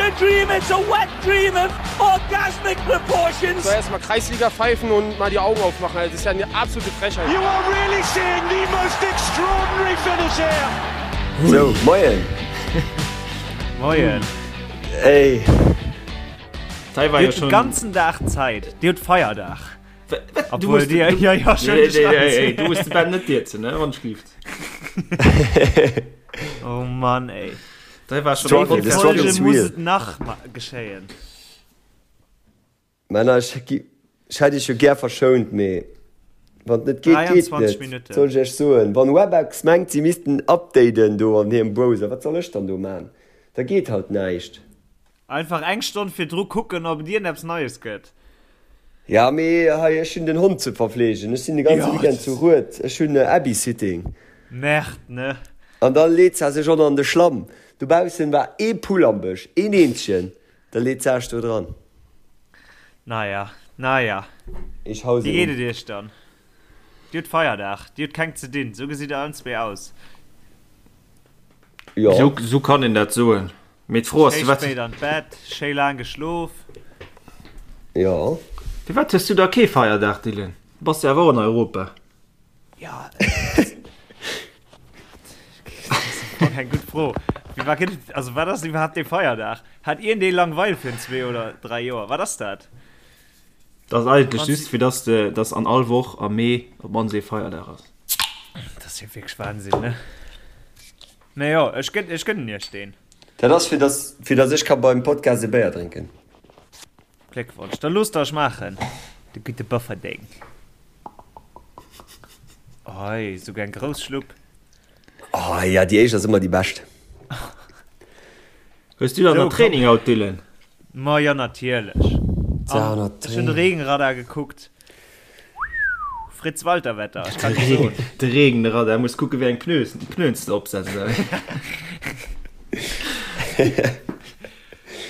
a dream, it's a wet dream of orgasmic proportions. So erstmal Kreisliga pfeifen und mal die Augen aufmachen. Also, das ist ja eine absolute Frechheit. You are really seeing the most extraordinary finish here. So, moien. Moien. Ey. Dir hutt den ganzen Dag Zäit. Dir hutt Feierdag. Obwohl dir, ja, ja, schon nee, nee, nee, nee, du musst de Ben net dierzen, ne, wann schlieft. Oh Mann, ey. Da war schon Struggle, the struggle is muss real. et nach geschéien? Männer, ech ech hätt iech jo gär verschount, mee wann et net geet, geet 23 net. Minutten. Wat soll ech iech soen? Wann Webex mengt, si missten updaten do an hirem Browser, wat soll ech dann do man? Da geet halt näischt. Einfach eng Stonn virdru kucken, ob et iergendeppes Neies gëtt. Ja, mee hei, ech hunn den Hond ze verfleegen. Ech sinn de ganze Weekend zu Rued. Ech hunn Abby-Sitting. Merde, ne? An da leet se sech och nach an de Schlamm. Dobaussen war ee Pull am Bësch, een eenzegen. Da leet se sech do dran. Naja, naja. Ech hau se Wéi geet um. et iech dann? Dir hutt Feierdag, dir hutt keng ze dinn. Sou gesitt der allen zwee aus. Jo. Sou kann een dat soen. Mee d'Fro ass, Schéi firwat. spéit an d'Bett, schéi laang geschlof. Jo. Firwat hues du da kee Feierdag, Dylan? Du bass jo awer och an Europa. Ja, dat ass eng gutt Fro. Firwat gëtt et, also wat ass iwwerhaapt dee Feierdag? Hat iergendee Langweil virun zwee oder dräi Joer? Wat ass dat? Dat ass eigentlech just, fir dass de, dass an all Woch am Mee op d'mannst ee Feierdag ass. Dat ass jo wierklech Wahnsinn, ne? Mee jo, ech gënn, ech gënnen iech deen. Dat ass fir dass, fir dass ech ka beim Podcast e Béier drénken. Gléckwonsch, da loosst der ech maachen, de gudde Bofferdeng. Oi, souguer eng grouss Schlupp. Oh ja, déi éischt ass ëmmer déi bescht. Hues du dann So, nach Training haut, Dylan? Ma jo, natierlech. An ech hunn de Regenradar gekuckt. Fritz Walter Wetter, ech kann net soen. De Regenradar, muss kucke wéi eng Pneus, Pneuen s de opsetz.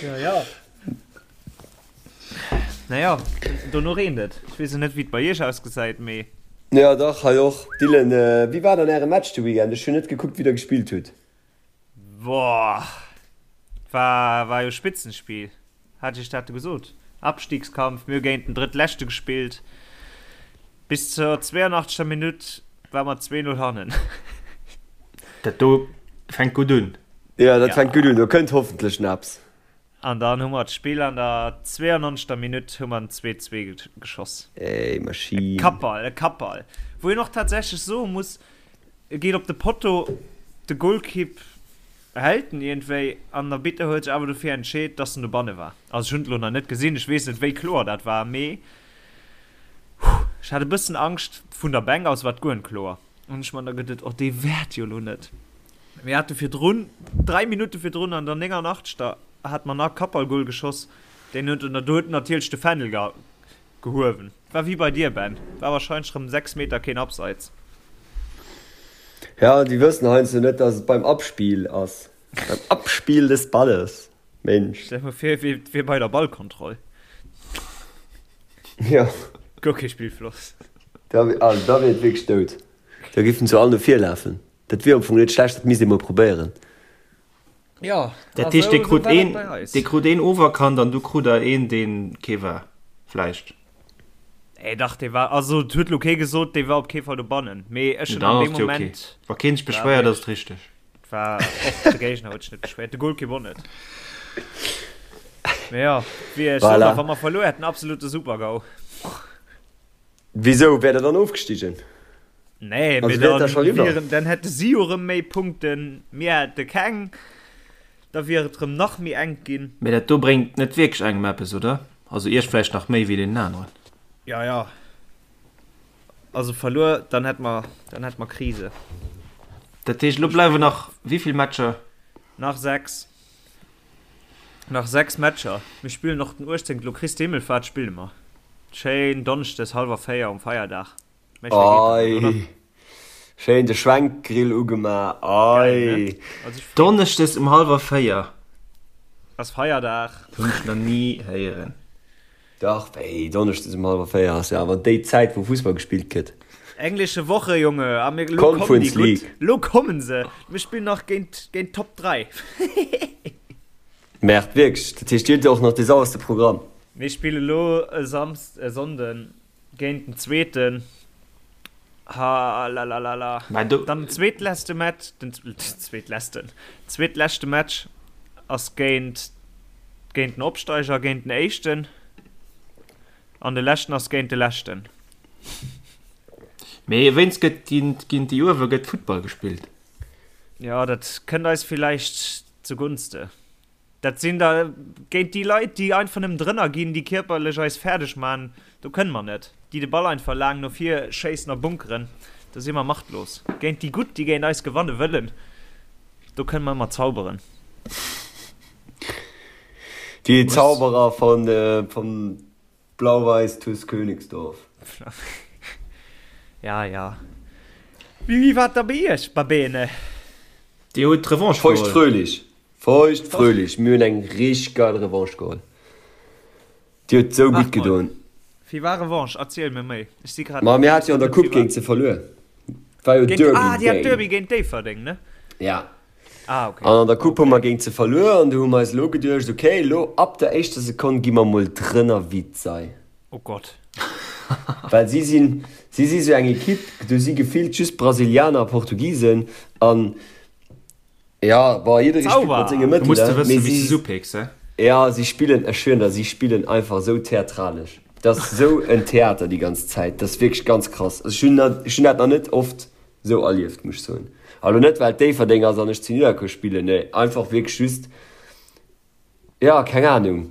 Ja, ja. Naja, dono reent et. Ech weess jo net, wéi et bei iech ausgesäit, mee. Jo, dach, hei och. Dylan, wéi war dann äre Match de Weekend? Ech hunn net gekuckt, wéi der gespillt hutt. Boah, war, war jo Spitzenspiel. Hat ech dat gesot? Abstiegskampf, mir hu géint den Drëttleschte gespillt. Bis zur 82. Minutt war mer 2-0 hannen. Dat do fänkt gutt un. Jo, dat fänkt gutt un. Do kënnt hoffentlech nach eppes. An dann hu mer d'Spill an der 92. Minutt hu mer den 2-2 geschoss. Ey, Maschinn. E Kappball, e Kappball. Wou een och tatsächlech soe muss, e geet op de Potto, de Golkipp hält en iergendwéi an den Arbitter huet sech awer dofir entscheet, dass en dobanne war. Also ech hunn et elo nach net gesinn, ech weess net wéi kloer dat war, mee ech hat e bëssen Angscht, vun der Bänk aus war et guer net kloer. An ech man da geduet, oh dee wäert jo elo net. Mir hate virdrun, 3 Minutte virdrun an der 89. Hat mer nach Kappballgol geschoss, deen huet do huet natierlech de Fändel gehuewen. War wéi bei dir Ben, war wahrscheinlech rëm 6 Meter keen Abseits. Ja, déi wëssen heiansdo net, dass et beim Abspiel ass. Beim Abspiel des Balles, Mensch. Stell dir mol vir, et wier bei der Ballkontroll. Jo. Guer kee Spillfloss. Da, also da wier et wierklech dout. Da géifen se all no vir lafen. Dat wier am Fong net schlecht, dat misst ee mol probéieren. Jo, Dat heescht, dir krut een, dir krut een oferkannt an du krut der een, deen kee war, vläicht? Nee, dach, dee war, also et huet lo kee gesot, dee war op kee Fall dobannen. Mee ech hunn an deem Moment. Wa keen sech beschwéiert, ass et richteg. War och de Géigner huet sech net beschwéiert, de Golkipp och net. Mee jo, wéi ech soen, wa mer verluer hätten, absolute Super-GAU. Wisou, wäert der dann ofgestigen? Nee, mee dann wieren, dann hätte si jo rëm méi Punkten, mir hätte keng, da wier et rëm nach méi enk ginn. Mee dat do bréngt net wierklech engem eppes, oder? Also iech vläicht nach méi wéi deenen aneren. Ja, ja. Also verluer, dann hätt mer, dann hätt mer Krise. Dat heescht, elo bleiwen nach wéi vill Matcher? Nach 6. Nach 6 Matcher. Mir spillen och den 18. Elo Christi Himmelfahrt spille mer. Schéin Donneschdes hallwer 4 um Feierdag. Méi schéi geet dat net, oder? Ei, schéin de Schwenkgrill ugema, Geil, ne? ei. Also ech freeë mech. Donneschdes um hallwer 4. Ass Feierdag. Hunn ech nach ni héieren. Dach, wéi, Donneschdes um hallwer 4 ass jo awer déi Zäit wou Fussball gespillt gëtt. Englische Woche, Junge, a mir, lo kommen déi Conference gutt, League. lo kommen se. Mir spillen nach géint, géint d'Top 3. Merde, wierklech? Dat heescht, dir hutt jo och nach dee sauerste Programm. Mir spille lo e Samsd-, e Sonnden géint den Zweeten. Halalalala. Mä do. Dann den zweetleschte Match, den zweetleschten, zweetleschte Match ass géint, géint den Opsteiger, géint den Éischten. An de leschten ass géint de Leschten. Mee wéinst gëtt géint, géint déi uewe gëtt Futtball gespillt. Jo, dat kënnt eis villäicht zugunste. Dat sinn da géint déi Leit, déi einfach nëmmen drënner ginn, déi kierperlech eis fäerdeg man, do kënne mer net. Déi de Ball einfach laang no vir schéissen a bunkeren, do si mer machtlos. Géint déi Gutt, déi géint eis gewanne wëllen, do kënne mer ëmmer zauberen. Déi Zauberer vun vum Blau-Weiß TuS Königsdorf. Ja, ja. Wéi war et da bei iech, Babene? Dir hutt d'Revanche geholl. Feucht-fröhlich. Feucht-fröhlich. Mir hunn eng richteg geil Revanche geholl. Déi huet sou gutt gedoen. Wéi war Revanche? Erziel mir méi. Ech si grad. Ma mir hate jo an der Coupe géint se verluer. War jo Derby. Ah, dir hat Derby géint Déifferdeng, ne? Ja. Ah, okay. An an der Coupe hu mer géint se verluer an du hu mer eis elo geduecht, okay, elo ab der éischter Sekonn gi mer mol drënner wéi d'Sei. Oh Gott. Well si sinn, si si sou eng Ekipp, do si gefillt just Brasilianer a Portugisen an ja, bon, jidderee spillt mat senge Mëttelen. Du muss de wëssen, wéi s de se upicks, he? Ja, si spillen, ech schwieren der, si spillen einfach esou theatralesch. Dat ass esou en Theater déi ganz Zäit, dat ass wierklech ganz krass. Also ech hunn dat, ech hunn dat nach net oft Sou erlieft, muss ech soen. A lo net well et Déifferdeng ass an ech zu Nidderkuer spillen, nee, einfach wierklech just, jo, keng Ahnung,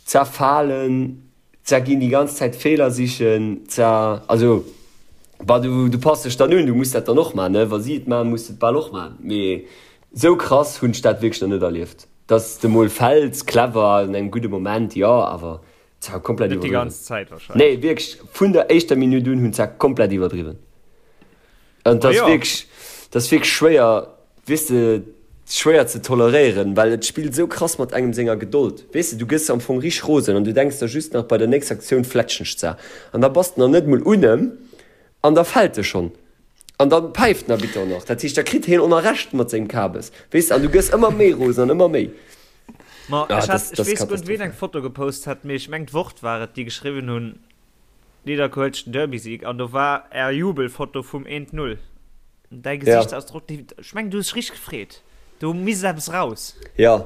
zerfalen, zerginn, déi ganz Zäit Feeler sichen, zer, also, bah, du, du pass dech dann un, du muss dat dann och man, ne, wa si et man, muss de et bal och man, mee sou krass hunn ech dat wierklech nach net erlieft, dass de mol fäls, clever, an engem gudde Moment, jo, awer ze komplett Net déi iwwerdriwwen. ganz Zäit wahrscheinlech. Nee, wierklech, vun der éischter Minutt un hunn se komplett iwwerdriwwen. An dat ass jo. wierklech, dat ass wierklech schwéier, weess de, schwéier ze toleréieren, well et spillt esou krass mat engem senger Gedold. Weess de, du gëss am Fong richteg rosen an du denks der just nach, bei der nächster Aktioun fletschen ech ze. An da bass de nach net mol un em an da fält e schonn. An dann päift den Arbitter och nach. Dat heescht, da kritt hien och nach Recht mat sengem Kabes. Weess de, an du gëss ëmmer méi rosen an ëmmer méi. Ma Ah, ech das, hat, ech das weess guer net, ween katastrophal. eng Foto gepost hat, mee ech meng d'Wort war et, déi geschriwwen hunn, Nidderkuer huet den Derby-Sieg an do war är Jubelfoto vum 1, 0. Däi Ja. Gesichtsausdrock, dee, ech meng du hues dech richteg gefreet. Do misst eppes raus. Ja,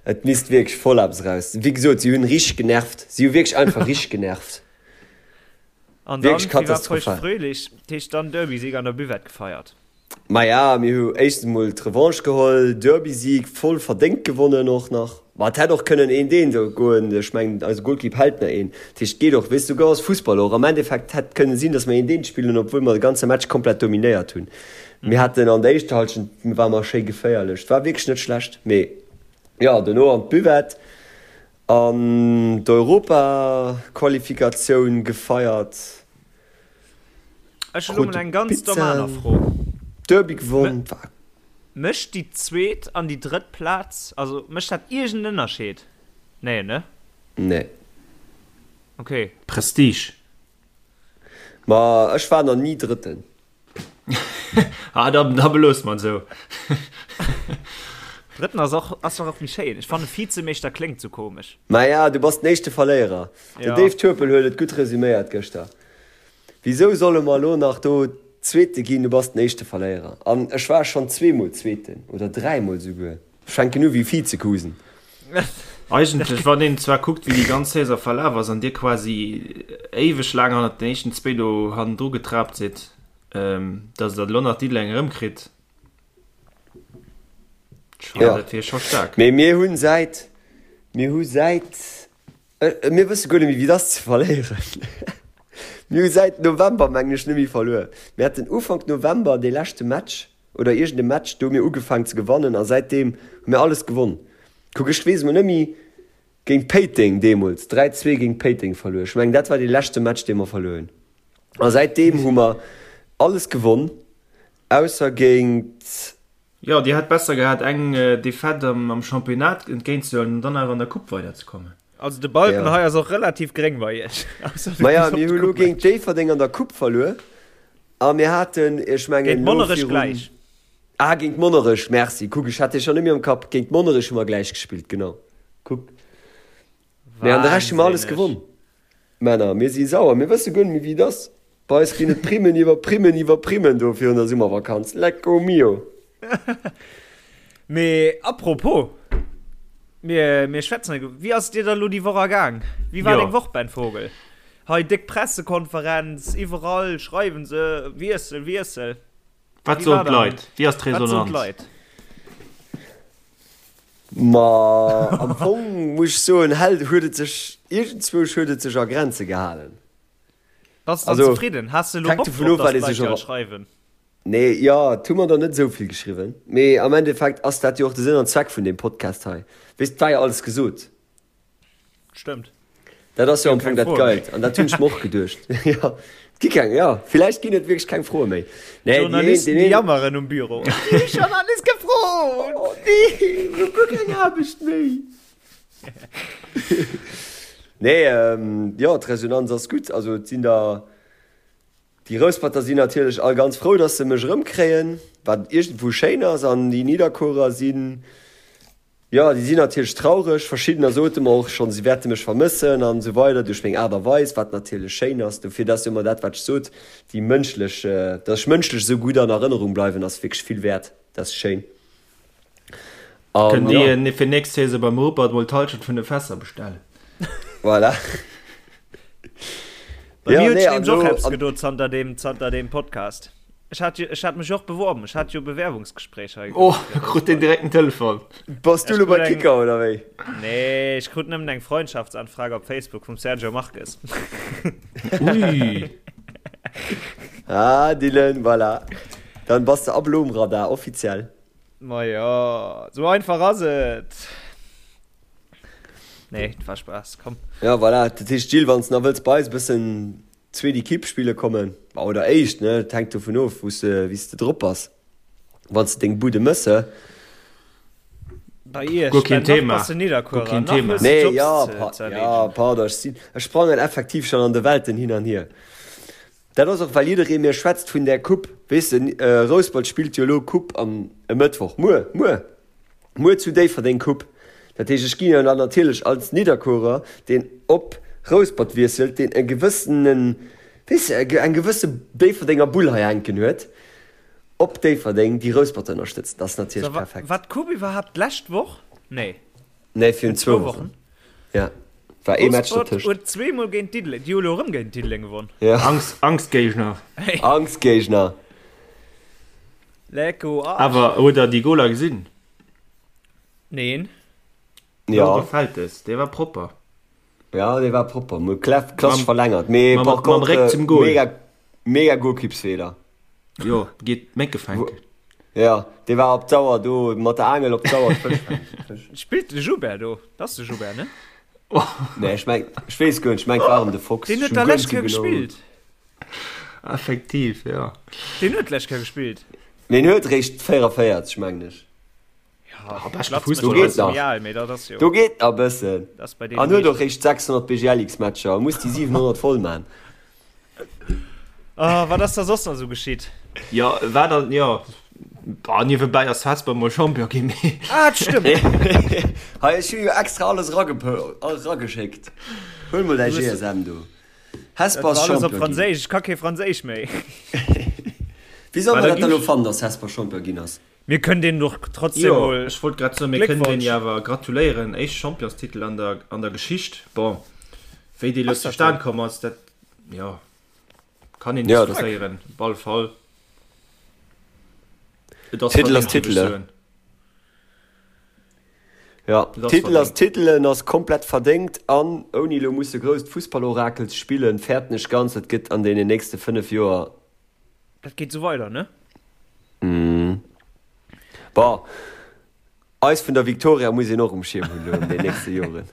et misst wierklech voll eppes raus. Wéi gesot, si hunn richteg genervt. Si hu wierklech einfach richteg genervt. An dann, Wierklech wie war feucht katastrophal. fröhlich, dat heescht dann Derby-Sieg an der Buvette gefeiert. Maja, mir hu éischtens emol d'Revanche geholl, Derby-Sieg voll verdéngt gewonnen och nach. Ma et hätt och kënnen eent eent goen, ech mengen eise Golkipp hält nach een. Dat heescht, et geet och, weess du, esou ass Fussball och. Am Endeffekt hätt kënne sinn, datt mer eent eent spillen, obwuel mer de ganze Match komplett dominéiert hunn. Mir haten an der éischter Hallschent ware mer schéi geféierlech, et war wierklech net schlecht. Mee jo, dono an d'Buvette an d'Europaqualifikatioun gefeiert. Ech hunn elo mol eng ganz domm aner Fro. Derby gewonn. Mécht déi zweet an déi drëtt Plaz, also mécht dat iergend en Ënnerscheed? Nee, ne? Nee. Ok. Prestige. Ma ech war nach ni Drëtten. Ah, da, da beloosse mer et esou. Drëtten ass och, ass och méi schéin. Ech fanne Vizemeeschter kléngt sou komesch. Maja, du bass den éischte Verléierer. Den Dave Turpel huet et gutt resuméiert gëschter. Wisou solle mer elo nach do Zweete ginn? Du bass den éischte Verléierer. An ech war schonn zweemol Zweeten oder dräimol souguer. Ech fänken u wéi Vizekusen. Eigentlech, wann een zwar kuckt, wéi déi ganz Saison verlaf ass an dir quasi éiweg laang hannert den éischten zwéi do hannendru getrapt sidd, datt der elo nach Diddeleng erëmkritt, Jo, dat wier scho staark. Mee mir hunn säit, mir hu säit, mir wësse guer net méi wéi et ass ze verléieren. Mir hu säit November, mengen ech, net méi verluer. Mir haten Ufank November dee leschte Match oder iergend e Match, do hu mir ugefaangen ze gewannen a säitdeem hu mir alles gewonn. Kuck, ech weess emol net méi, géint Péiteng deemools, 3, 2 géint Péiteng verluer. Ech mengen dat war dee leschte Match dee mer verluer hunn. A säitdeem hu mer alles gewonn, ausser géint. Jo, Dir hätt besser gehat eng Defaite am Championnat entgéint ze huelen an dann awer an der Coupe weiderzekommen. Also de Balken Ja. hei ass och relativ gréng bei Iech. Maja, mir hu lo géint Déifferdeng an der Coupe verluer a mir haten, ech mengen Géint lo Monnerech virun, gläich. ah géint Monnerech, merci, kuck ech hat dee schonn net méi am Kapp, géint Monnerech hu mer gläich gespillt, genau. Kuck. Mee an de Rescht hu mer alles gewonn. Männer, mir si sauer, mir wësse guer net méi wéi et ass. Bei eis ginn et Primmen iwwer Primmen iwwer Primmen do virun der Summervakanz. Lecco mio! Mee apropos, mir, mir schwätzen, wéi ass et dir da lo déi Woch ergaang? Wéi war deng Woch, Ben Vogel? Hei déck Pressekonferenz, iwwerall schreiwen se, Wiessel, Wiessel. Wat soen d'Leit? Wéi ass d'Resonanz? Ma am Fong muss ech soen, hält, huet et sech, iergendzwousch huet et sech a Grenze gehalen. Bass de dann zefridden? Has de elo Bock drop, datt d'Leit dir all schreiwen? Nee, jo, et hu mer der net esou vill geschriwwen. Mee am Endeffekt ass dat jo och de Sënn an Zweck vun deem Podcast hei. Weess, et war jo alles gesot. Stëmmt. Dat ass jo am Fong dat Geilt. An dat hunn ech mer och geduecht. Jo, et gi keng, jo, villäicht ginn et wierklech keng Froe méi. Nee, déi een, Journalisten, déi jammeren um Büro. Déi hu schonn alles gefrot! Oh nee, ech hu guer keng Aarbecht méi. Nee, jo, d'Resonanz ass gutt. Also et sinn der, déi Rousperter sinn natierlech all ganz frou, datt se mech erëmkréien, wat iergendwou schéin ass. An déi Nidderkuerer sinn, Jo, déi sinn natierlech traureg. Verschiddener sote mer och schonn, si wäerte mech vermëssen an esou weider duerch meng Aart a Weis, wat natierlech schéin ass. Dofir, dat ass jo ëmmer dat, wat ech sot, déi mënschlech, datt ech mënschlech esou gutt an Erënnerung bleiwen, ass wierklech vill wäert. Dat ass schéin. An Kënnt jo. Dir fir nächst Saison beim Rupert mol d'Hallschent vun de Fässer bestellen? Voilà. Bei mir huet sech nämlech och eppes gedo zanter deem, zanter deem Podcast. Ech hat jo, ech hat mech och beworben. Ech hat jo Bewerbungsgespréich hei. Oh, krut deen direkt en Telefon. Bass du lo bei Kicker oder wéi? Nee, ech krut nëmmen eng Freundschaftsanfrage op Facebook vum Sergio Marques. Ui. Ah, Dylan, voilà. Dann bass de ab elo um Radar, offiziell. Ma jo, sou einfach ass et. Nee, et war Spaass, komm. Ja, voilà. Dat heescht, Gilles, wann s de nach wëlls bei eis e bëssen zweet Equipe spille kommen, oder éischt, ne, et hänkt dovun of, wou s de, wéi s de drop bass, wann s de deng Bude mëss, he? Bei iech, Guer keen Ben, nach Thema. bass de Guer Nidderkuerer, keen nach Thema. hues de Nee, Jobs ja, ze, pa, ze ja, erleedegen. pardon, ech sinn, ech sprangen effektiv schonn an de Welten hin an hier. Dat ass och, well jidderee mir schwätzt vun där Coupe, weess de, Rouspert spillt jo elo Coupe am e Mëttwoch, muer, muer! Muer zu Déifferdeng Coupe. Dat heescht, ech ginn jo dann natierlech als Nidderkuerer, deen op Rouspert wiesselt, deen e gewëssenen, weess de, eng gewësse Déifferdenger Bull hei hänken huet, op Déifferdeng déi Rousperter ënnerstëtzen. Dat ass natierlech perfekt. War d'Coupe iwwerhaapt d'lescht Woch? Nee. Nee, virun zwou Wochen. Ja, war ee Match dertëscht. Rouspert huet zweemol géint Diddeleng, déi hu elo erëm géint Diddeleng gewonn. Ja. Angstgéigner. Angstgéigner. Lecko Arsch. Awer huet der déi Goler gesinn? Neen. Ja. Laure Feltes, dee war propper. Ja, dee war propper. Mo Clef, klassisch verlängert. Mee mam, par mam contre, Réck zum Goal. mega, mega Golkippsfeeler. Jo, geet Mécke fänken. Ja, dee war op d'Auer do, mat der Aangel op d'Auer d'Fësch fänken. Spillt de Joubert do? Dat ass de Joubert, ne? Nee, ech meng, ech weess guer net, ech meng, et war erëm de Fox. Deen huet da lescht Kéier gespillt. Effektiv, jo. Deen huet d'lescht Kéier gespillt. Mee en huet eréischt 44, mengen ech. Ja, beschte Do geet nach. Do geet nach e bëssen. An huet och eréischt 600 BGLX-Matcher a muss déi 700 voll man. Oh, wat ass da soss nach esou geschitt? Jo, war dann, jo. Bah, niewebäi ass Hesper mol Champion ginn, mee. Ah, dat stëmmt. Hei, ech hu jo extra alles erageschéckt. Huel mol däi GSM do. Hesper ass Champion ginn. Franséisch, ech ka kee Franséisch méi. Wéi soll mer dat dann elo fannen, dass Hesper Champion ginn ass? Mir kënnen deenen och trotzdem Jo, mol ech wollt grad soen, mir kënnen deenen Gléckwonsch. jo awer gratuléieren, éischte Championstitel an der an der Geschicht. Bon, wéi dee lo Ass dat zustan esou? komm ass, dat, jo, kann een Ja, dat. diskutéieren. Op alle Fall, et ass Titel ass verdéngt, géif ech Titel, soen. Ja, Et ass Titel ass verdéngt. Titel, en ass komplett verdéngt an ouni elo musse grousst Fussballorakel ze spillen, fäerten ech ganz, et gëtt an deenen nächste 5 Joer Dat geet sou weider, ne? Bon, eis vun der Victoria muss een och um Schierm hunn elo an den nächste Joren,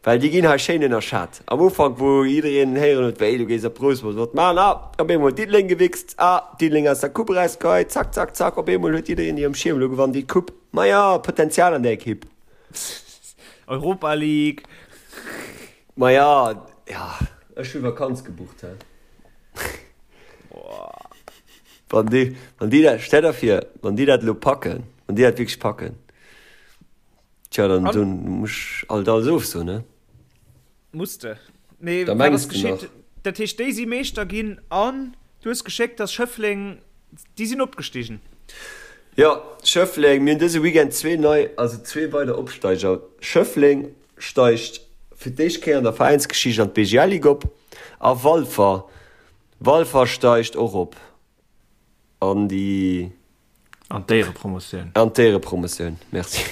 well déi ginn hei schéin ënnerschat. Am Ufank, wou jiddereen héieren huet, wéi du gees op Rousmont, wat man, ah, op eemol Diddeleng gewichst, ah, Diddeleng aus der Coupe erausgeheit, zack, zack, zack, op eemol huet jiddereen déi um Schierm, elo gewannen déi d'Coupe. Maja, Potenzial an där Ekipp. Europa League. Maja, ja, ech hu Vakanz gebucht, hä. Wann déi, wann déi dat, stell der vir, wann déi dat elo packen, wann déi dat wierklech packen. Tja, dann An muss ech alt alles ofsoen, ne? Muss de. Mee Da wat mengs ass de nach. geschitt? Dat heescht, déi si Meeschter ginn an du hues geschéckt, dass Schëffleng, déi sinn opgestigen. Jo, Schëffleng, mir hunn dëse Weekend zwee nei, also zwee weider Opsteiger. Schëffleng steigt fir d'éischt Kéier an der Veräinsgeschicht an d'BGL-Ligue op a Walfer, Walfer steigt och op an déi. An d'Éierepromotioun. An d'Éierepromotioun, merci.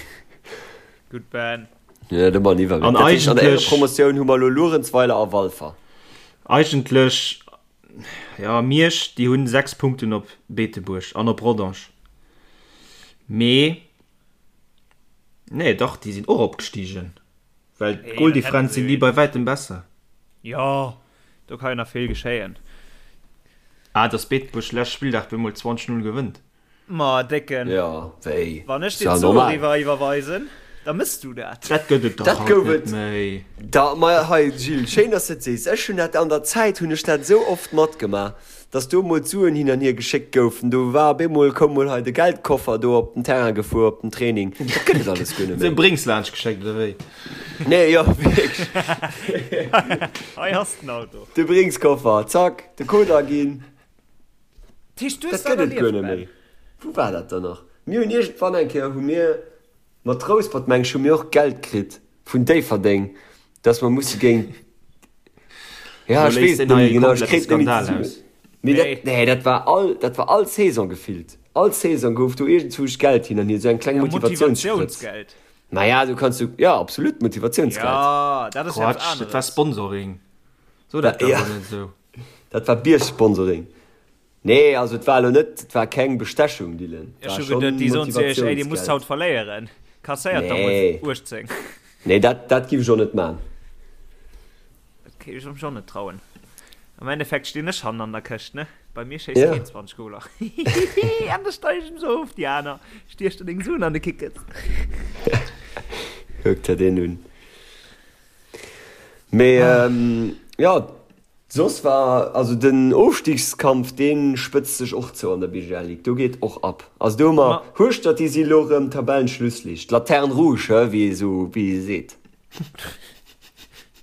Gutt Ben. Jo, do man iwwer. An Dat heescht, an der eigentlech. Éierepromotioun hu mer elo Luerenzweiler a Walfer. Eigentlech, jo, Miersch, déi hunn 6 Punkten op Beetebuerg an op Rodange. Mee, nee, dach, déi sinn och opgestigen, well d'Goldifferenz sinn déi bei wäitem besser. Jo, do ka jo nach vill geschéien. Ah, dass Beetebuerg lescht Spilldag bemol 20, 0 gewënnt. Ma Décken, Jo, wéi? wann ech Ass dir ja d'Suen normal. eriwwer iwwerweisen, da mëss du dat. Dat gëtt et dach Dat haut gouf net et méi. da. Ma hei Gilles, schéin dass de et sees. Ech hunn dat an der Zäit hunn ech dat esou oft matgemaach, dass do emol d'Suen hin an hier geschéckt goufen. Do war op eemol, koum mol hei de Geldkoffer do op den Terrain gefuer op den Training. Dat gëtt et alles guer net Sou méi. Bréngs laanscht geschéckt oder wéi? Nee, jo, wierklech. Hei ass den Auto. De Bringskoffer, zack, de Code aginn. Dat heescht, du hues Dat dat gëtt et guer erlieft, net Ben? méi. Wou war dat dann nach? Mir hunn iergendwann eng Kéier hu mir mat Rouspert, meng ech, hu mir och Geld kritt vun Déifferdeng, dass mer musse géint, ja, Lo ech léist weess et deen net méi hei e genau, ech komplette kréien et net méi Skandal zesummen. aus. Mee dat, Nee. nee, dat war all, dat war all Saison gefillt. All Saison gouf do iergendzwousch Geld hin an hier, esou eng kleng Ja, Motivatiounssprëtz. Motivatiounsgeld. Maja, du kanns du, ja, absolut Motivatiounsgeld. Ja, dat ass jo eppes Quatsch, dat war aneres. Sponsoring. So dat Ja. awer net esou. Dat war Bierg-Sponsoring. Nee, also et war elo net, et war keng Bestechung, Dylan. Et Ech war hu schonn geduet, déi soen zu iech, ey, dir musst Motivatiounsgeld. haut verléieren, kasséiert der mol Nee. 18. Nee, dat, dat giff ech och net man. Dat kéint ech mech och net trauen. Am Endeffekt stinn ech hannen an der Këscht, ne? Bei mir schéisst Ja. keen 20 Goler. Hihihi, an da steig ech se of, déi aner. Stiech der deng Suen an de Kickes. Kuck der deen un. Mee, jo, Soss war, also den Ofstigskampf, dee spëtzt sech och zou an der BGL Ligue, do geet och ab. Also do hu mer Hueschtert, déi si elo erëm Tabellenschlusslicht, Laterne rouge, he, wéi ee sou, wéi ee seet.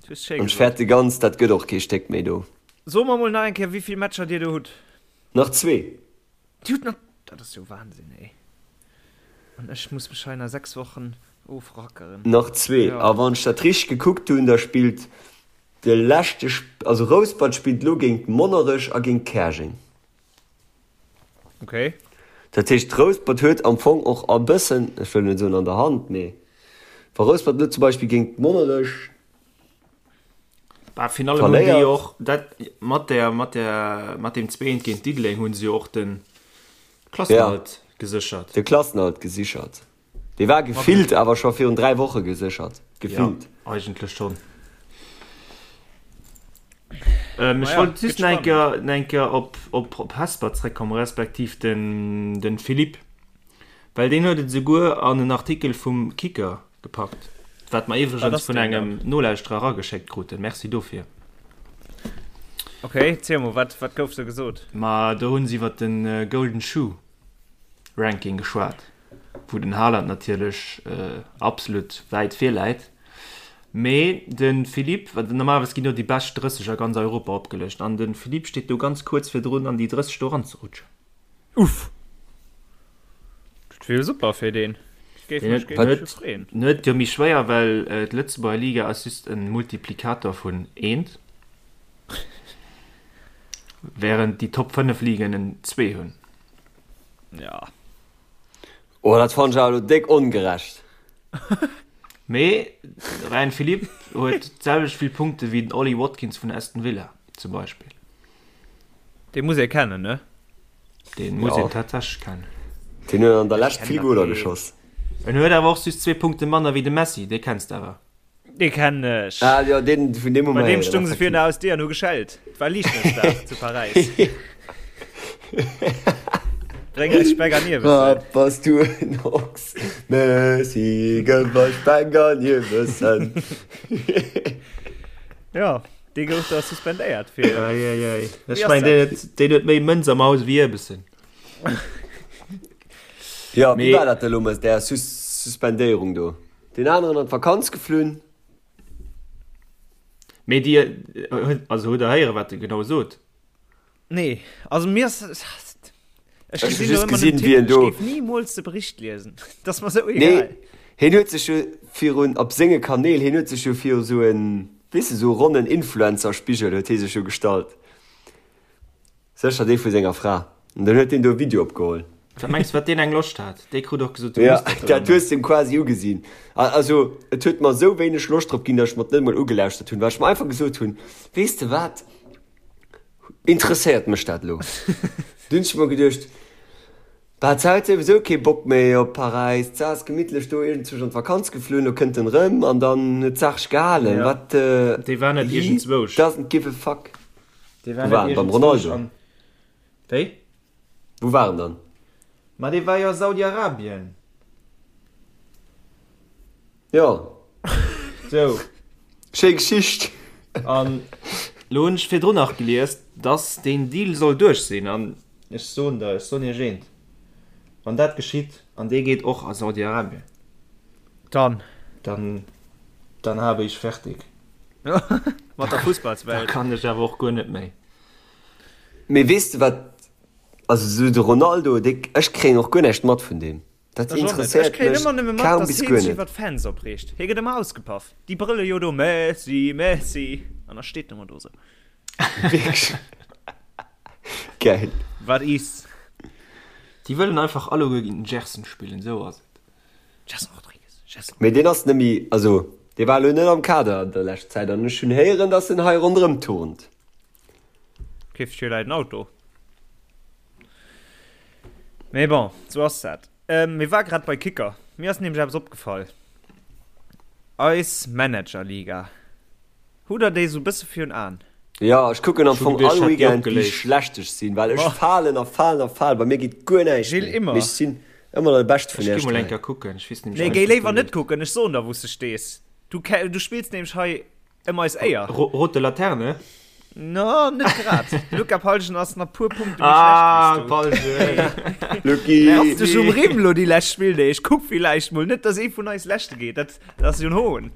Du hues schéi An ech gesot. fäerte ganz, dat gëtt och kee Stéck méi do. So mer mol nach eng Kéier, wéi vill Matcher dir do hutt. Nach zwee. Dir hutt nach, dat ass jo Wahnsinn, ey. An ech muss mech hei nach 6 Wochen ofrackeren. Nach zwee. Jo. A wann ech dat richteg gekuckt hunn, da spillt De leschte, also Rouspert spillt elo géint Monnerech a géint Käerjeng. Okay. Dat heescht, Rouspert huet am Fong och e bëssen, ech wëll net soen an der Hand, mee wa Rouspert elo zum Beispill géint Monnerech Bah, Finale hunn déi verléiert. och dat mat der mat der mat deem 2 géint Diddeleng hunn se jo och de Klassenerhalt geséchert. De Klassenerhalt gesichert. Dee war gefillt awer scho virun 3 Woche geséchert. Gefillt. Ja, eigentlech schonn. Ähm, ech Naja, wollt just gëtt nach eng spannend. Kéier, nach eng Kéier op, op, op Hesper zréckkommen, respektiv den, den Philippe. Well deen huet et esouguer an en Artikel vum Kicker gepackt, wat mer Wat iwwregens ass vun deen engem dann? Nolauschterer erageschéckt kruten. Merci dofir. Okay, ziel mol, wat, wat gouf do gesot? Ma do hunn se iwwer den Golden Shoe Ranking geschwat. wou den Haaland natierlech absolut wäit vir läit, mee de Philippe, well normalerweis ginn jo déi bescht 30 a ganz Europa opgelëscht, an de Philippe steet do ganz kuerz virdrun an déi 30 do eranzerutschen. Uff! Dat wier jo super fir deen. Géif mech géif mech jo freeën. En huet et jo méi schwéier, well d'Lëtzebuerger Liga ass just e Multiplikator vun eent, wärend déi Top 5 Ligen en zwee hunn. Ja. Oh, dat fannen ech awer elo déck ongerecht. Mee de Ryan Philippe huet d'selwecht vill Punkte wéi den Ollie Watkins vun Aston Villa zum Beispill. Dee muss ee kennen, ne? Deen muss Ja. een tatsächlech kennen. Deen huet an der Lescht vill Kennt Goler dat kee. geschoss. En huet awer och just zwee Punkte manner wéi de Messi, dee kenns de awer. Dee kennen ech. Ah jo, deen, vun deem hu Bei mer deem héieren, stung se virun effektiv. der Hausdier an hu geschellt. Et war Liichtmëssdag zu Paräis. Bréng eis Speck an Ierbessen. Ah, bass du en Ochs, Messi, gëff eis Speck an Ierbessen. Jo, dee gouf da suspendéiert fir. Ei, ei, ei. Ech Wéi ass mengen, dat? deen huet, deen huet méi Mënz am Haus wéi Ierbessen. Jo, wéi Mee- war dat elo mat där Sus Suspendéierung do? Deen aneren an d'Vakanz geflunn. Mee dir, also hutt der héieren, wat e genau sot? Nee, also mir ass, ech Ech hu gesinn do just ëmmer den gesinn, wéi Titel, en ech do. géif nimools de Bericht liesen, dat ass mer sou Nee, egal. hien huet sech jo virun, op senge Kanäl, hien huet sech jo viru sou en, weess de, sou e ronnen Influencer-Spigel huet hie sech jo gestallt. Sécher dee vu senger Fra. An dann huet deen do e Video opgeholl. Wat mengs wat deen eng Loscht hat? Dee krut och gesot, du Ja, muss dat dat elo hues de em quasi ugesinn. Also, et huet mer esou wéineg Loscht drop ginn, datt ech mer et net emol ugelauschtert hunn, well ech mer einfach gesot hunn, Weess de wat, interesséiert mech dat elo? Dunn hunn ech mer geduecht, Bah, d'Sa huet souwisou kee Bock méi op Paräis, d'Sa ass gemittlech do iergendzwousch an d'Vakanz geflunn, lo kënnt en erëm an dann huet d'Saach sech gehalen. Ja, Wat, dee war net he iergendzwousch. doesn't give a fuck. Dee war Wou war net en? Beim iergendzwousch Ronaldo? an. Wéi? Wou war en dann? Ma dee war jo a Saudi-Arabien. Jo. Sou. Schéi Geschicht. An lo hunn ech virdrun nach gelies, dass deen Deal soll duerch sinn. An ech soen der, ech soen iech eent, Wann dat geschitt an dee geet och a Saudi-Arabien, Dann. dann, dann habe ich fertig. Mat der Da Fussballswelt. kann ech awer och guer net méi. Mee weess de wat, also sou de Ronaldo, dee, ech kréien och guer näischt mat vun deem. Dat Ech och net. Ech interesséiert kréien mech ëmmer nëmme mat, kaum dass bis hee guer sech net. iwwer d'Fans opreegt. Hie gëtt ëmmer ausgepaff. Déi brëlle jo do, Messi, Messi, an da steet en ëmmer do sou. Wierklech? Geil. Wat is? Déi wëllen einfach alleguer géint den Gerson spillen, sou ass et. Gerson Rodrigues, Gerson. Mee deen ass nemmi, also dee war elo net am Kader an der lescht Zäit an ech hunn héieren, dass en hei ronderëm turnt. Keeft sech jo leit en Auto. Mee bon, sou ass dat. Mir war grad bei Kicker. Mir ass nämlech eppes opgefall. Eis Managerliga. Hutt der déi sou bësse virun Aen? Jo, ech kucken am Ech hu Fong geduecht, all ech hätt déi Weekend wéi opgeléist. schlecht ech sinn, well ech Ma. falen a falen a falen, bei mir geet guer näischt Gilles, méi, immer. mee ech sinn ëmmer nach de Beschte vun Ech gi Iech mol 3. eng Kéier kucken, ech weess nämlech Nee, net, géi wou léiwer do net leeft. kucken, ech soen der wou s de stees. Du ke, du spills nämlech hei ëm eis Éier. Ro rote Laterne? No, net grad. De Luca Palgen ass nach puer Punkte méi Ah, schlecht wéi s du. Palgen! Lucky! Raff dech um Rimm lo déi lescht Spilldeeg. Kuck villäicht mol net, dass ee vun eis Leschte geet. Dat, dat ass jo en Hohn.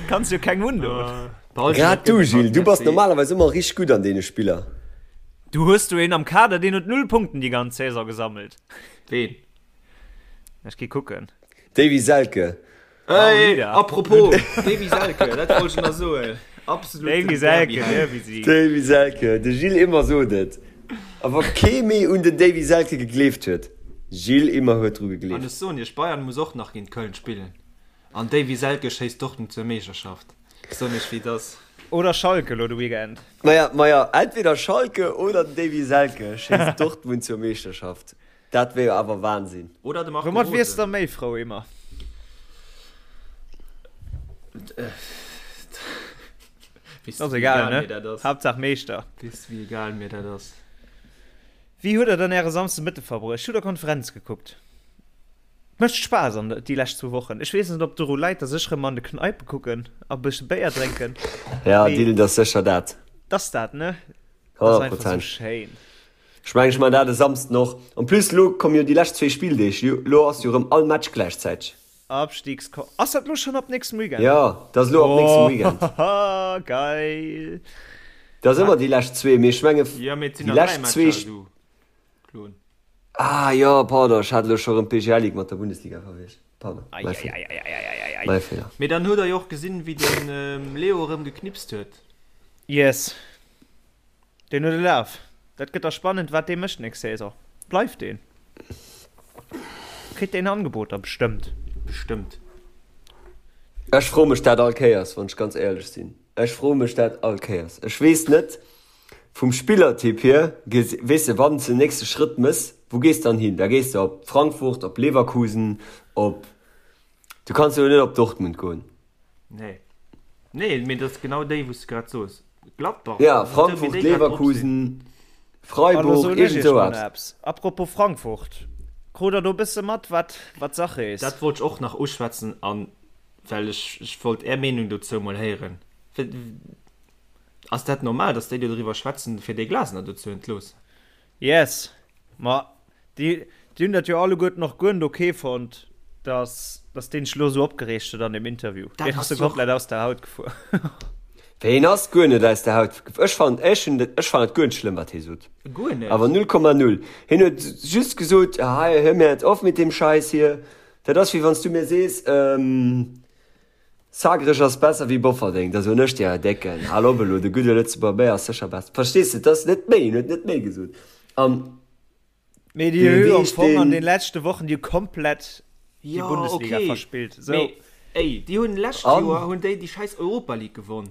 Kanns jo kengem undoen. Grad du, Gilles, du bass normalerweis ëmmer richteg gutt an deene Spiller. Du hues do een am Kader, deen huet null Punkten déi ganz Saison gesammelt. Ween? Ech gi kucken. Davy Selke. Hey, apropos Davy Selke, dat wollt ech nach soen. Absoluten Davy Selke, Derby-Held. Derby-Sieg. Davy Selke, de Gilles Immer sot et. A wa kee méi un den Davy Selke gegleeft huet, Gilles Immer huet dru An gegleeft. ech soen iech, Bayern muss och nach géint Köln spillen. An Davy Selke schéisst Dortmund zur Meeschterschaft. Soen iech wéi et ass. Oder Schalke lo de Weekend. Maja, maja, entweder Schalke oder den Davy Selke schéisst Dortmund zur Meeschterschaft. Dat wär jo awer Wahnsinn. Oder de Marco Woumat wiers Rose. der méi frou, Emma? Weess Ass du wéi egal, egal ne? mir dat ass? Haaptsaach Meeschter. Weess du wéi egal mir dat ass? Wéi huet der dann äre Samsdemëtte verbruecht? Hutt der Konferenz gekuckt? Mécht Spaass an déi lescht zwou Wochen. Ech weess net op doru läit dass ech rëm an de Kneipe kucken a bësse Béier drénken. Ja Mee Dylan, dat ass sécher dat. T'ass dat ne? T'ass 100 einfach sou Prozent. schéin. Ech mengen ech man dat e Samsden och. En plus lo komme jo déi lescht zwéi Spilldeeg, lo ass jo rëm all Match gläichzäiteg. Abstiegsko ass dat lo schonn ab nächstem Weekend? Jo, dat ass lo ab nächstem Weekend. Ohohoho geil. Dat ass ëmmer déi lescht zwee, mee ech menge Jo mee et sinn déi nach 3 lescht zwee. Matcher du Klon. Ah jo, pardon, ech hat elo scho rëm d'BGL Ligue mat der Bundesliga verwiescht. Pardon, mäi Feeler. Eieieiei. Mäi Feeler. Mee dann huet der jo och gesinn wéi den Leo erëm geknipst huet. Yes, deen huet e Laf. Dat gëtt da spannend wat dee mécht nächst Saison. Bleift deen? Kritt deen Angeboter? Bestëmmt. Bestëmmt. Ech froe mech dat all Kéiers, wann ech ganz éierlech sinn. Ech froe mech dat all Kéiers. Ech weess net, Vum Spillertyp hier, weess de, wann s de den nächste Schrëtt mëss, wou gees de dann hin? Da gees de op Frankfurt, op Leverkusen, op, du kanns jo net op Dortmund goen. Nee. Nee, mee dat ass genau déi, wou s de grad soos. Gladbach. Ja, esou wéi Frankfurt, déi grad drop sinn. Leverkusen, An da Freiburg, soen ech iergend iech esou mol eppes. eppes. Apropos Frankfurt, krut der do e bësse mat, wat, wat Sache is? Dat wollt ech och nach uschwätzen, an well ech, ech wollt Är Meenung dozou mol héieren. Ass dat normal, dass déi do driwwer schwätzen, fir dee Glasner do ze entloossen? Yes, ma déi, déi hunn dat jo alleguerten och guer net ok fonnt, Dass, dass deen sech lo sou opgereegt huet an dem Interview. Dat Deen ass ass sou jo och. komplett aus der Haut gefuer. Wéi, hien ass guer net aus der Haut gefuer. Ech fannen, ech hunn, ech fannen et guer net schlëmm, wat hie sot. Guer net. Awer 0,0. Hien huet just gesot, hei, hör mir jetzt auf mit dem Scheiß hier. Dat ass wéi wann s du mir sees, Zagreg ass besser wéi Bofferdeng. Da soen ech dir, Décken, hal op elo, de gudde Lëtzebuerger Béier ass sécher besser. Verstees de, et ass net méi, hien huet net méi gesot. An Mee déi hu am Fong an den leschte Wochen déi hu komplett déi Bundesliga verspillt. So. Mee ey, déi hunn lescht Joer hunn déi déi scheiß Europa League gewonn.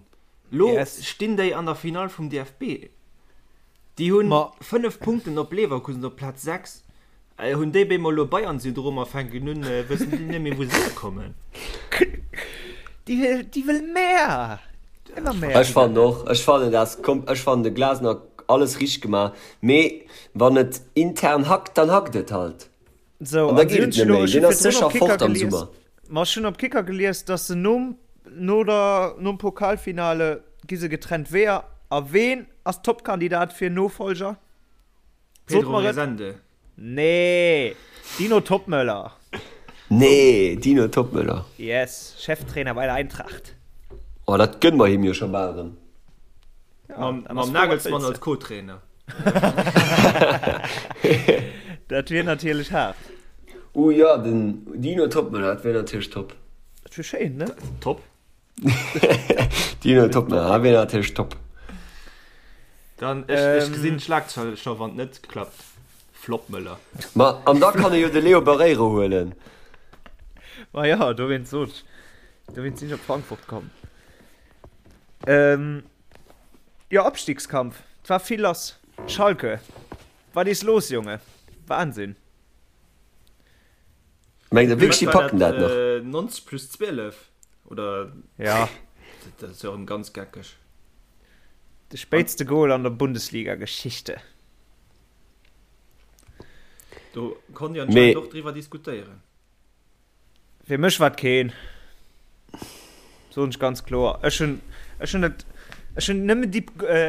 Lo yes. stinn déi an der Finall vum DFB. Déi hunn 5 Punkten op Leverkusen op Plaz 6. Äh, hunn déi bemol lo Bayern-Syndrom a fänken un, äh, wëssen déi net méi wou se hierkommen. Déi wëll, déi wëll mehr. Ëmmer mehr. Ech fannen och, ech fannen dat kom, ech fannen de Glasner alles richteg gemaach, mee wann et intern hackt, dann hackt et halt. So, An da an si geet hunn et net elo, méi. ech hu Deen ass virdrun sécher op Kicker fort am gelies, Summer. ma ech hunn op Kicker gelies, dass se nom, no der, nom Pokalfinale gi se getrennt Weeër. A ween ass Topkandidat fir Nofolger? Sot Pedro mer et. Rezende. Nee, Dino Toppmöller. Nee, Dino Toppmöller. Yes, Cheftrainer bei der Eintracht. Oh, dat gënne mer him jo scho bal erëm. Ja, Mam, dann ass mam froh, wat Nagelsmann wëlls als de. Co-Trainer. Dat wier natierlech haart. Oh jo, den Dino Toppmöller, dat wier natierlech top. Dat wier schéin, ne? Top. Dino Toppmöller, dat wier natierlech top. Dann, ech, ech gesinn d'Schlagzeile scho, wann et net klappt. Floppmöller. Ma an da kann e jo de Leo Barreiro huelen. Ma jo, dowéinst sot ech, dowéinst sinn ech op Frankfurt komm. Ähm, jo, Abstiegskampf, et war vill lass. Schalke, wat is los, Jonge? Wahnsinn. Mengt der wierklech, déi packen dat nach? 90 plus 12 oder? Ja. Dat ass jo erëm ganz geckeg. De spéitste Goal an der Bundesliga-Geschichte. Do konnt Dir anscheinend och driwwer diskutéieren. Fir mech war et keen. Soen ech ganz kloer. Ech hunn, ech hunn et, ech hunn nëmmen déi,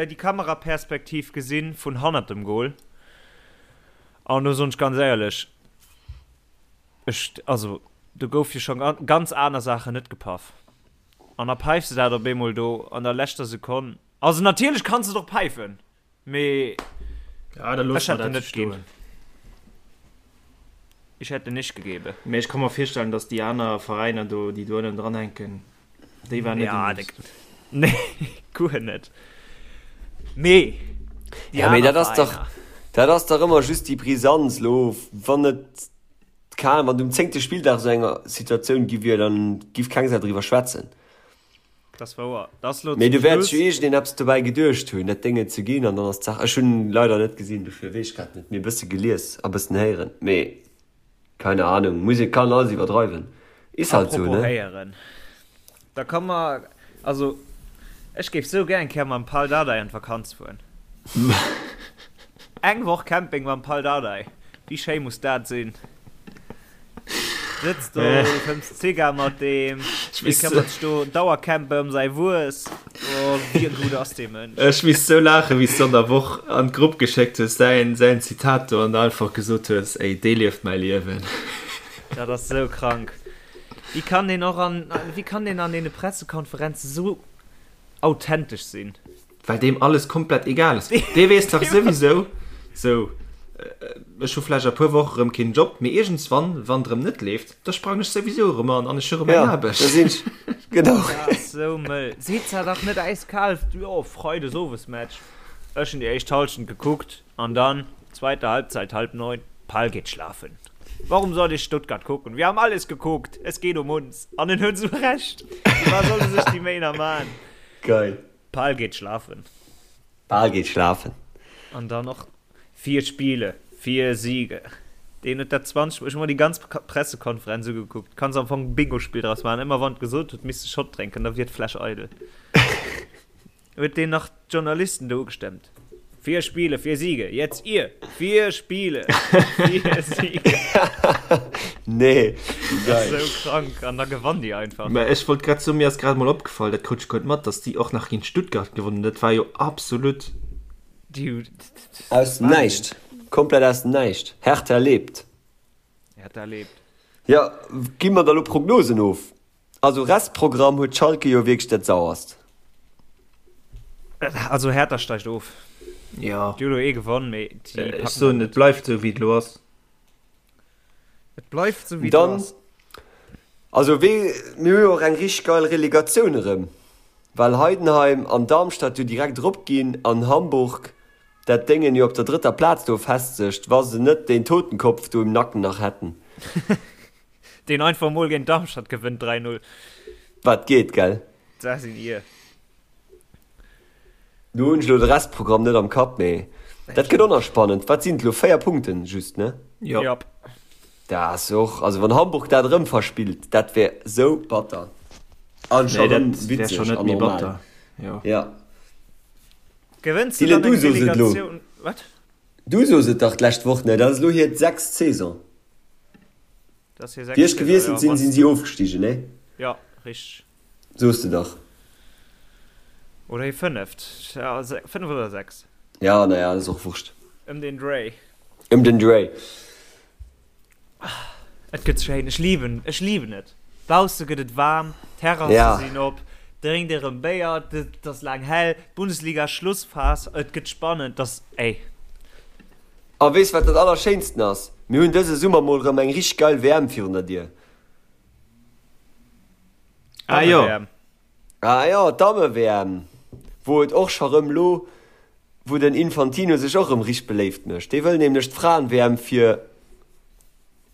déi Kameraperspektiv gesinn vun hannert dem Goal. An do soen ech ganz éierlech, ech, also do gouf jo scho ganz aner Saachen net gepaff. An da päifs de dat op eemol do an der leschter Sekonn. Also natierlech kanns de et och päifen. Mee Ja, da loosse ech mer hätt en dat net ginn. stoen. Ich hätte nicht gegeben. Mee ech ka mer virstellen, datt déi aner Veräiner do, déi do ënnen dran hänken, déi waren net Ja, amused. nee, guer net. Mee déi Ja, mee aner dat ass dach, Veräiner. dat ass dach ëmmer just déi Brisanz lo, wann et, keen, wann et um zéngte Spilldag esou eng Situatioun gi wier, dann giff keng Sau driwwer schwätzen. Das wouer. Das lo Mee zum du wäert sech Schluss. jo iergendeen eppes dobäi geduecht hunn, dat Déngen ze ginn an dann ass d'Saach. Ech hunn leider net gesinn, dofir weess ech grad net. Mee e bësse gelies a bëssen héieren. Mee keine Ahnung, muss ee kann alles iwwerdreiwen. Is halt sou, Apropos ne? héieren, da ka mer, also ech géif sou gär eng Kéier mam Pal Dardai an d'Vakanz fueren. Eng Woch Camping mam Pal Dardai, wéi schéi muss dat sinn? Sëtzt do, fëmms Zigar mat deem, dee këmmert sech do Dauercampe ëm säi Wues. Oh, wéi gutt ass dee Mënsch. Ech misst sou laachen, wéi s du an der Woch an d'Grupp geschéckt hues, säin, säin Zitat do, an da einfach gesot hues, Ey, dee lieft mäi Liewen. Dat ass sou krank. Wéi kann deen och an, wéi kann deen an deene Pressekonferenze sou authentesch sinn? Well deem alles komplett egal ass. Dee weess dach souwisou, sou, ech hu vläicht a puer Woche rëm keen Job, mee iergendswann, wann et rëm net leeft, da sprangen ech souwisou erëm an an ech hu rëm eng Ja, Aarbecht. da sinn ech, genau. Dat ass sou mëll. Seet zwar dach net äiskal, jo, Freides Owesmatch. Ech hunn déi éischt Halschent gekuckt an dann zweite Halbzeit, halb neun, Pal geht schlafen. Warum soll ich Stuttgart gucken? Wir haben alles geguckt, es geht um uns. An en huet sou Recht. Firwat soll e sech déi Méi nach man? Geil. Pal geht schlafen. Pal geht schlafen. An dann och vier Spiele, vier Siege. Deen huet dat 20 Mol, ech hu mer déi ganz Pressekonferenz ugekuckt, kanns am Fong e Bingospill draus maachen, ëmmer wann et gesot huet, misst e Shot drénken, da wier d'Fläsch eidel. Huet deen nach d'Journalisten do ugestemmt. Vier Spiele, vier Siege, jetzt ihr! Vier Spiele, vier Siege. Nee, wéi Das geil. ass sou krank an da gewann déi einfach. Mä ech wollt grad soen, mir ass grad emol opgefall, dat krut ech guer net mat, dass déi och nach géint Stuttgart gewonnen hunn. Dat war jo absolut. Déi hu. Aus dem Wahnsinn. Näischt. Komplett aus dem Näischt. Hertha lebt. Hertha lebt. Jo, gi mer da lo Prognosen of? Also Restprogramm huet Schalke jo wierklech dat sauerst. Also Hertha steigt of. Jo. Déi hu lo ee gewonn, mee déi Ech packen dat soen, et net. bleift esou wéi et elo ass. Et bleift esou wéi et elo Dann, ass. also wee, mir hu jo och eng richteg geil Relegatioun erëm, well Heidenheim an Darmstadt jo direkt erop ginn an Hamburg dat Déngen jo op der drëtter Plaz do festsegt, wa se net deen Totenkopf do im Nacken nach hätten. Deen einfach mol géint Darmstadt gewënnt 3, 0. Wat geet, gell? Dat sinn ir. Do hunn ech elo de Restprogramm net am Kapp, mee dat gëtt och nach spannend. Wat sinn et elo, 4 Punkten just, ne? Jo. Jop. Dat ass och, also wann Hamburg dat erëm verspillt, dat wär sou batter. An scho Nee, erëm dat wär witzeg scho net an méi normal. batter. Jo. Ja. Gewënns de Dylan, dann du eng soos et elo. Relegatioun? Wat? Du soos et dach d'lescht Woch, ne? Dat ass elo hir sechst Saison. Dat ass hir Wéi sechst ech Saison, gewiesselt jo. sinn, Wann sinn si ofgestigen, ne? Jo, richteg. Soos de dach. Oder hir fënneft. Ja, fënnef oder sechs. Ja, naja, dat ass och Wurscht. Ëm den Dréi. Ëm den Dréi. Et gëtt schéin, ech liben, ech liben et. Bausse gëtt et waarm, d'Terrasse Ja. sinn op, drénkt erëm Béier, et ass laang hell, d'Bundesliga Schlussphas, et gëtt spannend, et ass, ey. A weess wat dat allerschéinsten ass? Mir hunn dëse Summer mol rëm eng richteg geil WM virun der Dier. Ah jo. Damme-WM. Ah jo, d'Damme-WM, wou et och scho rëm lo, wou den Infantino sech och rëm richteg beléift mécht. Dee wëll nämlech d'Fraen-WM fir,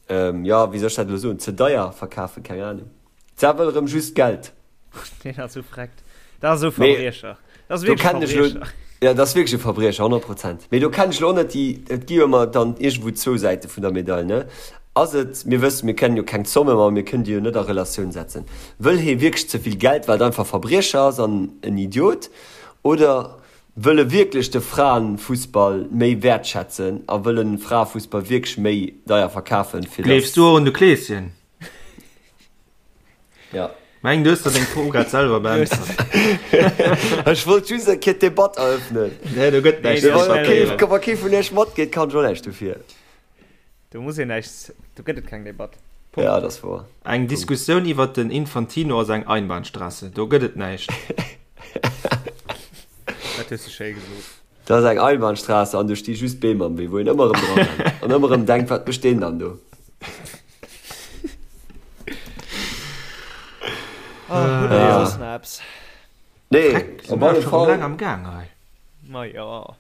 jo, wéi soll ech dat elo soen, ze deier verkafen, keng Ahnung. D'Sa wëll rëm just Geld. Deen ass sou freckt. Dat ass esou Mee Verbriecher. Dat ass do wierklech kennen ech lo, Verbriecher. ja, dat ass wierklech e Verbriecher, 100 Prozent. Mee do kennen ech lo och net déi, et gi jo ëmmer dann iergendwou zwou Säite vun der Medail, ne? Ass et, mir wëssen, mir kennen jo keng Zommen, ma mir kënnen déi jo net a Relatioun setzen. Wëll hee wierklech ze vill Geld, well et einfach Verbriecher ass an en Idiot, oder wëll e wierklech de Fraenfussball méi wäertschätzen a wëll en Fraefussball wierklech méi deier verkafen, fir Gleefs dass. du och un de Kleeschen? Ja. Meng du hues der deng Fro grad selwer beäntwert. Ech wollt just eng Kéier d'Debatt eröffnen. Nee, do gëtt näischt Nee, Wa debattéiert. kee, wa kee vun iech matgeet, kann ech och näischt dofir. Do muss een näischt, do gëtt et keng Debatt. Punkt. Ja, dat ass wouer. Eng Diskussioun iwwert den Infantino ass eng Einbahnstraße. Do gëtt et näischt. Dat hues du schéi gesot. Dat ass eng Einbahnstraße an do sti just Beem am Wee, wou een ëmmer erëm dra rennt an ëmmer erëm denkt, wat mécht deen dann do? Oh, hutt der soss nach eppes? Nee, Freck, op si mer alle scho Fall. laang am Gaang hei. Ma jo.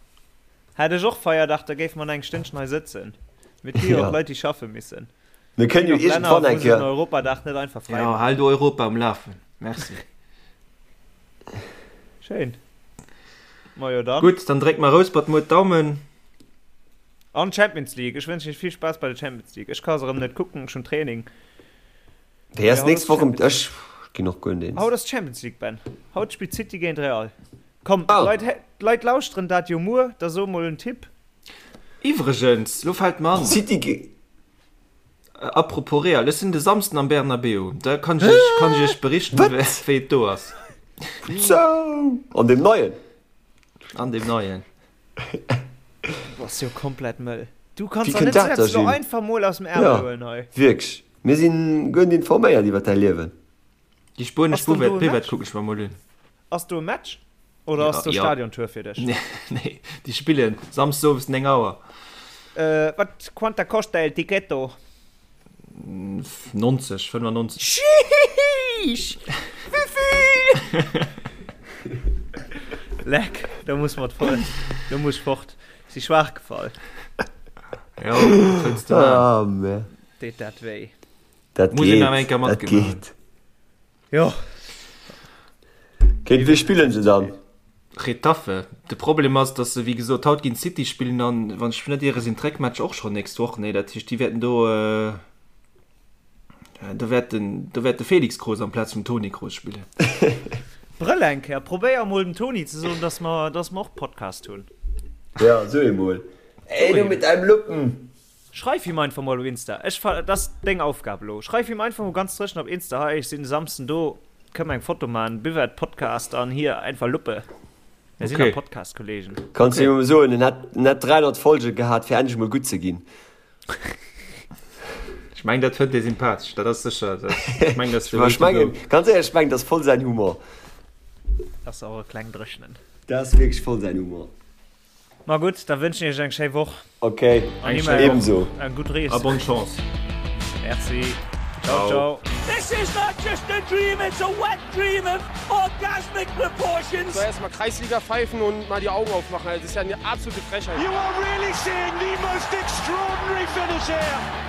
Hätt ech och Feierdag, da géife mer nach eng Stënnchen hei sëtzen. Mee et gi jo Ja. och Leit, déi schaffe missen. Mir Et kënnen ginn jo och Länner, iergendwann wou eng se den Kéier. Europadag net einfach fräi Jo, maachen. hal du Europa um Lafen. Merci. Schéin. Majo dann. Gutt, dann dréck mer Rouspert muer d'Daumen. An Champions League. Ech wënschen iech vill Spaass bei der Champions League. Ech ka se erëm net kucken, ech hunn Training. Déi ass Mee haut nächst ass Woch um. Champions Ech ginn och guer net eens. Haut ass Champions League, Ben. Haut spillt City géint Real. Komm, Ah. d'Leit, d'Leit lauschteren dat jo muer, da so mol en Tipp. Iwwregens, lo fält mer an, City ge. Apropos Real, ech sinn de Samsden am Bernabéu, da kann ech iech, kann ech iech berichten, Wat? wéi et do ass. Sou! An deem neien? An deem neien. Du bass jo komplett mëll. Du kanns Wéi der kënnt net dat da, selbst lo Gilles? einfach mol aus dem Ärmel Ja, huelen hei. wierklech. Mir sinn guer net informéiert iwwer däi Liewen. Déi spuenesch Ass dann do Buvette, e Buvette Match? kucken ech mer mol un. Ass do e Match? Oder ass Ja, do ja. Stadiontour fir dech? Nee, nee, déi spillen Samsdes owes 9 Auer. Äh, wat, quanta costa el ticketto? 90, 95. Sheesh! Wéivill? Leck, do muss mer d'Voll, do muss ech fort. Si schwaach gefall. Jo, wat wëlls de maachen? Ah, mä. Deet dat wéi. Dat Muss een geet, awer eng Kéier dat matgemaach hunn. geet. Jo. Géint wie spillen se dann? Getafe. De Problem ass, datt se wéi gesot haut géint City spillen an, wann ech mech net iere, sinn d'Réckmatch och schonn nächst Woch. Nee, dat heescht, déi wäerten do, do wäert den, do wäert de Felix Kroos amplaz vum Toni Kroos spillen. Brëll eng Kéier, probéier emol dem Toni ze soen, datt mer, datt mer och Podcast hunn. Ja, so emol. Ey, du mit deinem Luppen! Schreif him einfach mol op Insta. Ech fa, dat ass deng Aufgab elo. Schreif him einfach mol ganz dréchen op Insta, hei ech sinn de Samsden do, kënne mer eng Foto man, Buvette Podcast an hier einfach Luppe. Mir sinn Okay. am Podcast, Kollegen. Kanns du him soen, en hätt en hätt 300 Folge gehat fir endlech mol gutt ze ginn. Ech. Ech mengen dat fënnt ee sympathesch, dat ass sécher, ech mengen dat ass de Way to go. Ganz éierlech, ech mengen dat ass voll säin Humor. Dat ass och e kleng Dréchnen. Dat ass wierklech voll säin Humor. Ma gutt, da wënschen ech iech eng schéi Woch. Ok, ebenso. Eng gutt Rees. A bonne Chance. Merci. Ciao, ciao. This is not just a dream, it's a wet dream of orgasmic proportions. So erstmal Kreisliga pfeifen und mal die Augen aufmachen. Das ist ja eine absolute Frechheit. You are really seeing the most extraordinary finish here.